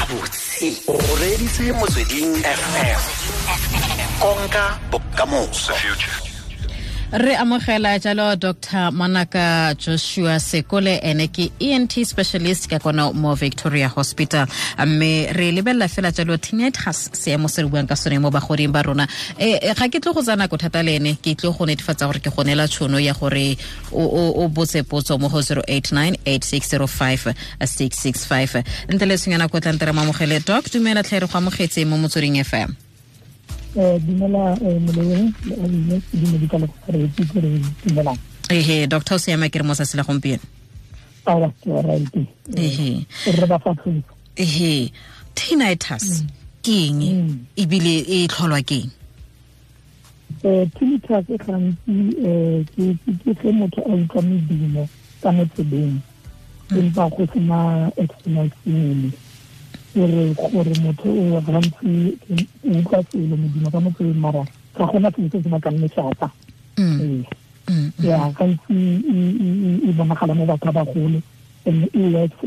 Gabotse o reeditse Motsweding FM, konka bokamoso. Re amogela jalo Dr Manaka Joshua Sekole, ene ke ENT specialist ka kona mo Victoria Hospital, mme re lebelela fela jalo tinnitus, seemo se re buang ka sone mo bagoding ba rona. Ga ke tlo go tsaya nako thata le ene, ke tlo go netefatsa gore ke go neela tšhono ya gore o botse potso mo go 089 8605 665 ntle le tshwenyana ko tlantere. Mamogele doc, dumela tlhe, re go amogetse mo Motsweding FM. Dumela moleweng le abile, dumedisa le go ke re dumelang. Ehe doctor, o siama ke re mo tsatsi la gompieno? Awa, ke right. Ehe. Re ba fa tlhogo. Ehe, tinnitus ke eng ebile e tlholwa ke eng? Tinnitus e gantsi ke ge motho a utlwa medumo ka mo tsebeng empa go sena external stimuli, gore motho o gantsi o utlwa selo, modumo ka mo tsebeng, mara ga gona selo se se bakang lešata. Ee, ya, gantsi e bonagala mo batho ba bagolo and e works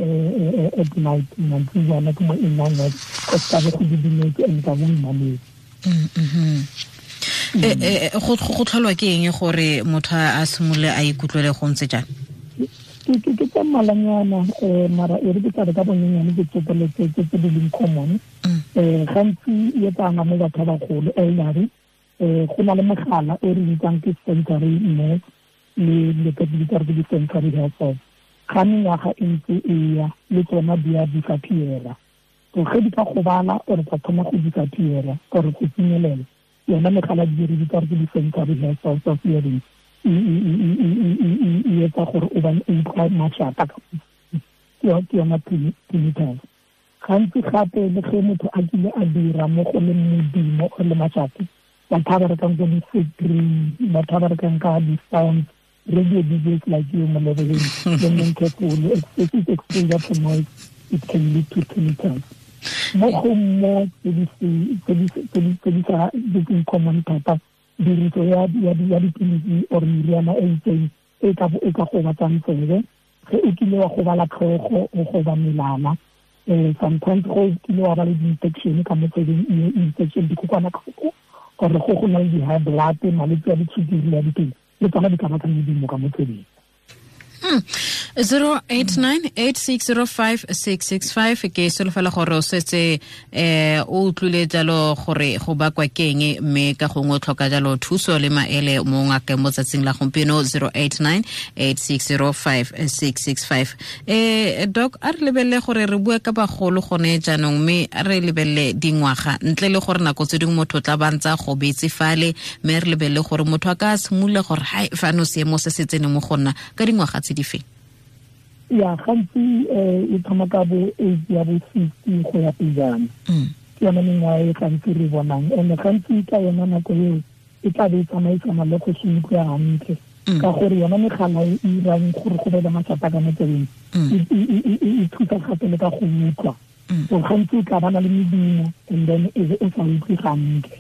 at night, mantsibuana ke mo e nnang worse, go se ka be go didimetse and ka bo mmametse. Go tlholwa ke eng gore motho a simolole a ikutlwele go ntse jang? Ke tsa mmalanyana, mara e re ke tla re ka bonyenyane ke tsopeletse tse di leng common. Gantsi e etsana mo batho ba bagolo, elderly. Go na le mogala o re bitsang ke sensory nerve le ke bitsa re ke di-sensory hair cells. Ga mengwaga e ntse e ya, le tsona di a disappeara. So ge di ka gobala or tsa thoma go disappeara or go tsenyelela, yona megala di re bitsa re ke di-sensory hair cells of hearing, e etsa gore o bane o utlwa mašata. Ke yona tinnitus. Gantsi gape le ge motho a kile a dira mo go le modumo or le mašata, batho ba berekang ko di-factory, batho ba berekang ka di-sounds, radio DJs like you, Molebeleng, le neng careful, excessive exposure to noise, it can lead to tinnitus. Mo go mo tse di sa di common thata, tiriso ya dipilisi or meriana e itseng e ka gobatsang tsebe, ge o kile wa gobala tlhogo, o goba melala, sometimes go kile wa ba le di-infection ka mo tsebeng, infection, dikokwanatlhoko, or go na le di-high blood, malwetse a ditshukiri le a dipelo, le tsona di ka baka medumo ka mo tsebeng. 089 8605 665. Ke solofela gore o setse o utlwile jalo gore go bakwa ke eng, mme ka gongwe o tlhoka jalo thuso le maele mo ngakeng mo tsatsing la gompieno, 089 8605 665. Doc, a re lebelele gore re bua ka bagolo gone jaanong, mme a re lebelele dingwaga, ntle le gore nako tse dingwe motho o tla ba ntse a gobetse fale, mme re lebelele gore motho a ka simolola gore hai, fano seemo se se tsene mo go nna ka dingwaga tse di feng? Ya, gantsi e thoma ka bo age ya bo 60 go ya pejana. Ke yone mengwaga e gantsi re bonang, and gantsi ka yona nako eo e tla be e tsamaisana le go se utlwe hantle, ka gore yona megala e irang gore go be le mašata ka mo tsebeng e thusa gape le ka go utlwa. So gantsi o tla bana le medumo and then e be o sa utlwe gantle.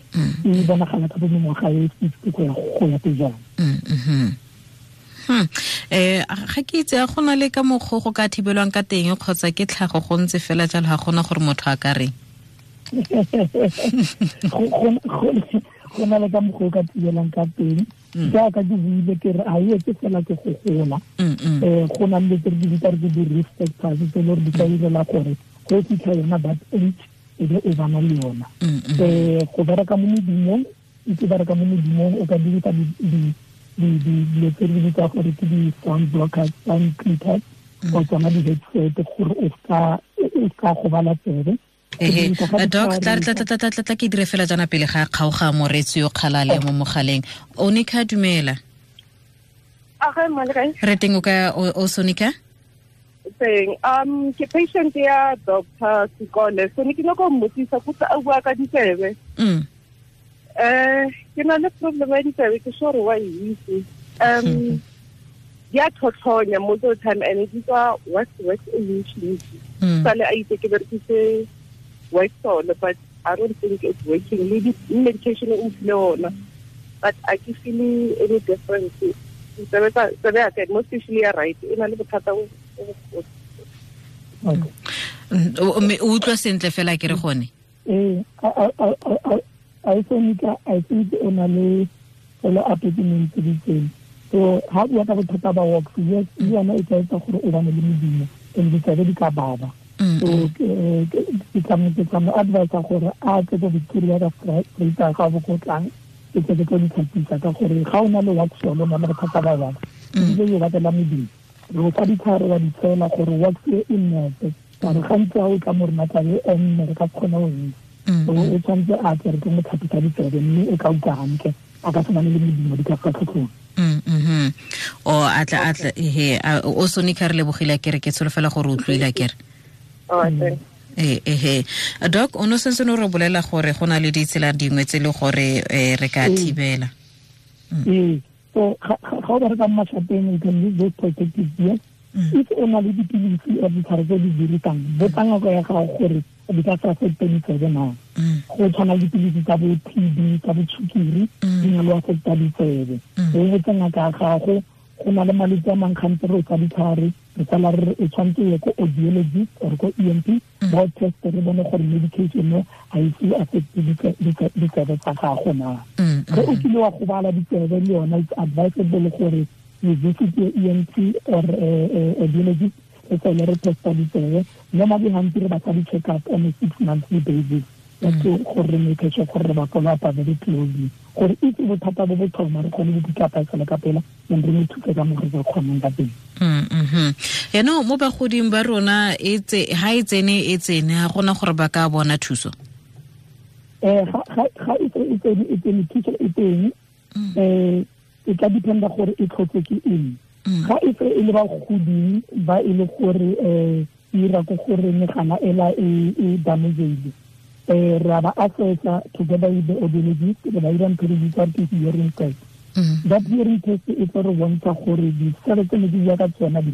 E bonagala ka bo mengwaga e 60 go ya pejana. Ga ke itse a gona le ka mokgwa go ka thibelwang ka teng kgotsa ke tlhago go ntse fela jalo, ga gona gore motho a ka reng? Go na le ka mokgwa o ka thibelang ka teng. Jaaka ke buile, ke re a e etse fela ke go gola. Go na le tse re di bitsa re ke di-risk factors tse e le gore di ka direla gore go fitlha yona that age e be o bana le yona. Go bereka mo modumong, itse bereka mo modumong, o ka dirisa dilo tse re di bitsa gore ke di-sound blockers, sound filters, or tsona di-headset gore o ska gobala tsebe. Ehe, doc, tla tla tla tla tla tla ke dire fela jana pele ga kgaoga moretsi yo kgalale mo mogaleng. Onika, dumela. Age, male kae? Re teng, o ka o Sonika? Teng. Ke patient ya Dr. Sekole. So ne ke nyaka go mmotsisa kutse a bua ka ditsebe. Ke na le problem ya ditsebe, ke sure wa e itse. Di a tlhotlhonya most of the time and di tswa wax e ntsi ntsi. Sale a itse ke berekise Waxsol, but I don't think it's working. Le di medication o mphile ona, but I ke feel any difference. Tsebe tsa, tsebe ya ka, most especially ya right, e na le bothata bo bogolo. Okay. Mme o utlwa sentle fela ke re gone. Ee, a think o na le fela appointment tse di tseng. So ha bua ka bothata ba wax, yes, le yona e ka etsa gore o bane le modumo and ditsebe di ka baba. So ke tla mo advise gore a tle ko Victoria ka Vrydag ga bo ko tlang, ke tle ke tlo di tlhapisa ka gore ga o na le wax o na le bothata ba wax, ebile yo batlela modumo. Re fa ditlhare wa di tshela gore wax e nnepe, ka re gantsi ga o tla mo rona tlabe e nne re ka kgona go itse. So o tshwanetse a tle re tlo mo tlhapisa ditsebe mme o tla utlwa hantle, a ka se bane le modumo di ka fa tlhotlhong. O atla he o Sonica re lebogile kere ke tsholofela gore o utlwile kere. Ehe doc o no sentse no re bolela gore go na le ditsela dingwe tse le gore re ka thibela. So ga o bereka mo mashapeng, you can use those protective gear. If o na le dipilisi or ditlhare tse di dirisang, botsa ngaka ya gago gore di ka sa affecte ditsebe na. Go tshwana le dipilisi tsa bo TB, tsa bo tshukiri, di na le affecta ditsebe. O botsa ngaka ya gago, go na le malwetse a mangwe gantsi re o tsa ditlhare, re tsala re o tshwanetse ye ko audiologist or ko ENT, ba o teste re bone gore medication no ga e se affecte ditsebe tsa gago na. Ge o kile wa gobala ditsebe le yona, it's advisable gore you visit your ENT or audiologist, re tsele re testa ditsebe. Normally gantsi re batla di-check up on a 6 monthly basis, just gore re make sure gore re ba follow up very closely, gore if bothata bo bo thoma re kgone go pick up e ka pela, then re mo thuse ka mo re ka kgonang ka teng. Yaanong mo bagoding ba rona ha e tsene e tsene, ga gona gore ba ka bona thuso. Ga e tsene thuso e teng, e tla dependa gore e tlhotse ke eng. Ga e tse e le bagoding ba e le gore e ira ko gore megala ela e damaged, re ba assessa together with the audiologist, re ba ira ntho re bitsa ke hearing test. That hearing test e tlo re bontsha gore ditsebe tse ne di bua ka tsona di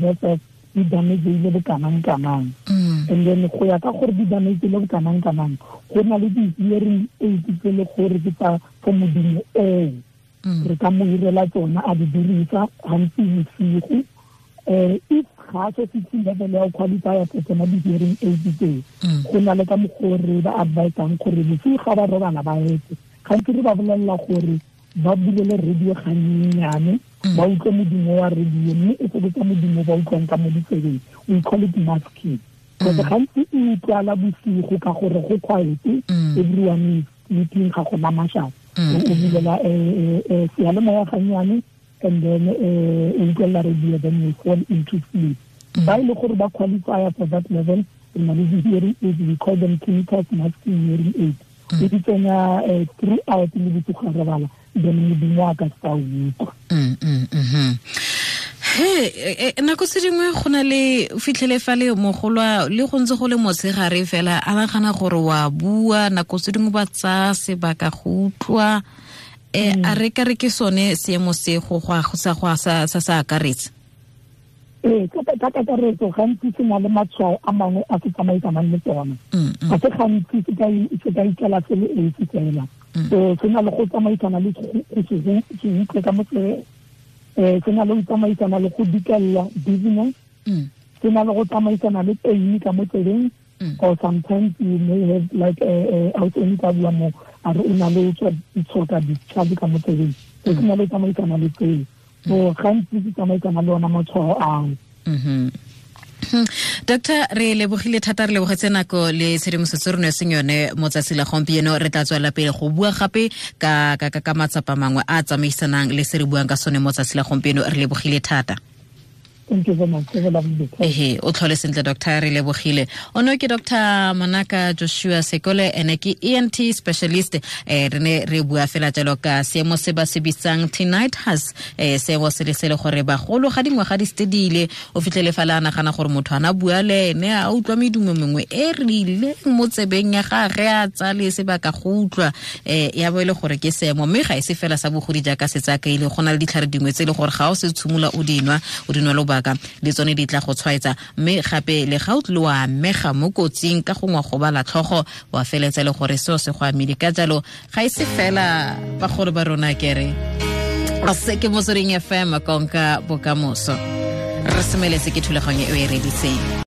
di damaged bo kanang kanang. And then go ya ka gore di damaged bo kanang kanang, go na le di-hearing aids tse le gore ke tsa for modumo oo. Re ka mo irela tsona a di dirisa gantsi bosigo. If ga se fitlhe level ya go qualify for tsona di-hearing aids tseo, go na le ka mokgwa re ba advisang gore bosigo ga ba robala ba etse. Gantsi re ba bolelela gore ba bulele radio ganyenyane, ba utlwe modumo wa radio, mme e fokotsa modumo ba utlwang ka mo ditsebeng. We call it masking. Because gantsi e utlwala bosigo ka gore go quiet, everyone is sleeping, ga gona mašata. O bulela seyalemoya gannyane, and then o utlwelela radio, then you fall into sleep. Ba e le gore ba qualify for that level, re na le di-hearing aids, we call them tinnitus masking hearing aids. E di tsenya throughout le bosigo ga robala, then modumo a ka se ka o utlwa. He nako tse dingwe go na le fitlhele fa le mogolwa le go ntse go le motshegare fela a nagana gore wa bua, nako tse dingwe ba tsaya sebaka go utlwa. A re ka re ke sone seemo se go sa sa akaretse. Ee, ka kakaretso gantsi se na le matshwao a mangwe a se tsamaisanang le tsona. Ga se gantsi se ka ikela se le esi fela. So se na le go tsamaisana le go se utlwe ka mo tsebeng, se na le go tsamaisana le go dikella dizziness, se na le go tsamaisana le pain ka mo tsebeng, or sometimes you may have like a ka bua mo a re o na le tshoka discharge ka mo tsebeng. So se na le tsamaisana le tseo. So gantsi se tsamaisana le ona matshwao ao. Doctor, re lebogile thata, re lebogetse nako le tshedimosetso re neetseng yone mo tsatsi la gompieno. Re tla tswela pele go bua gape ka ka matsapa mangwe a tsamaisanang le se re buang ka sone mo tsatsi la gompieno. Re lebogile thata. Thank you very much. Have a lovely day. Ehe, o tlhole sentle doctor, re lebogile. Ono ke Dr. Manaka Joshua Sekole, ene ke ENT specialist. Re ne re bua fela jalo ka seemo se ba se bitsang tinnitus, seemo se le se le gore bagolo ga dingwaga di stedile, o fitlhele fa le a nagana gore motho ana bua le ene a utlwa medumo mengwe e rileng mo tsebeng ya gagwe, a tsale sebaka go utlwa, ya bo e le gore ke seemo. Mme ga e se fela sa bogodi jaaka se tsaka ile, go na le ditlhare dingwe tse e le gore ga o se tshimola o dinwa lobaka le tsone di tla go tshwaetsa. Mme gape le ga o tlile wa amega mo kotsing ka gongwe go bala tlhogo, wa feletsa le gore seo se go amile. Ka jalo ga e se fela bagolo ba rona kere se ke Motsweding FM, konka bokamoso. Re semeletse ke thulaganyo e o e reditseng.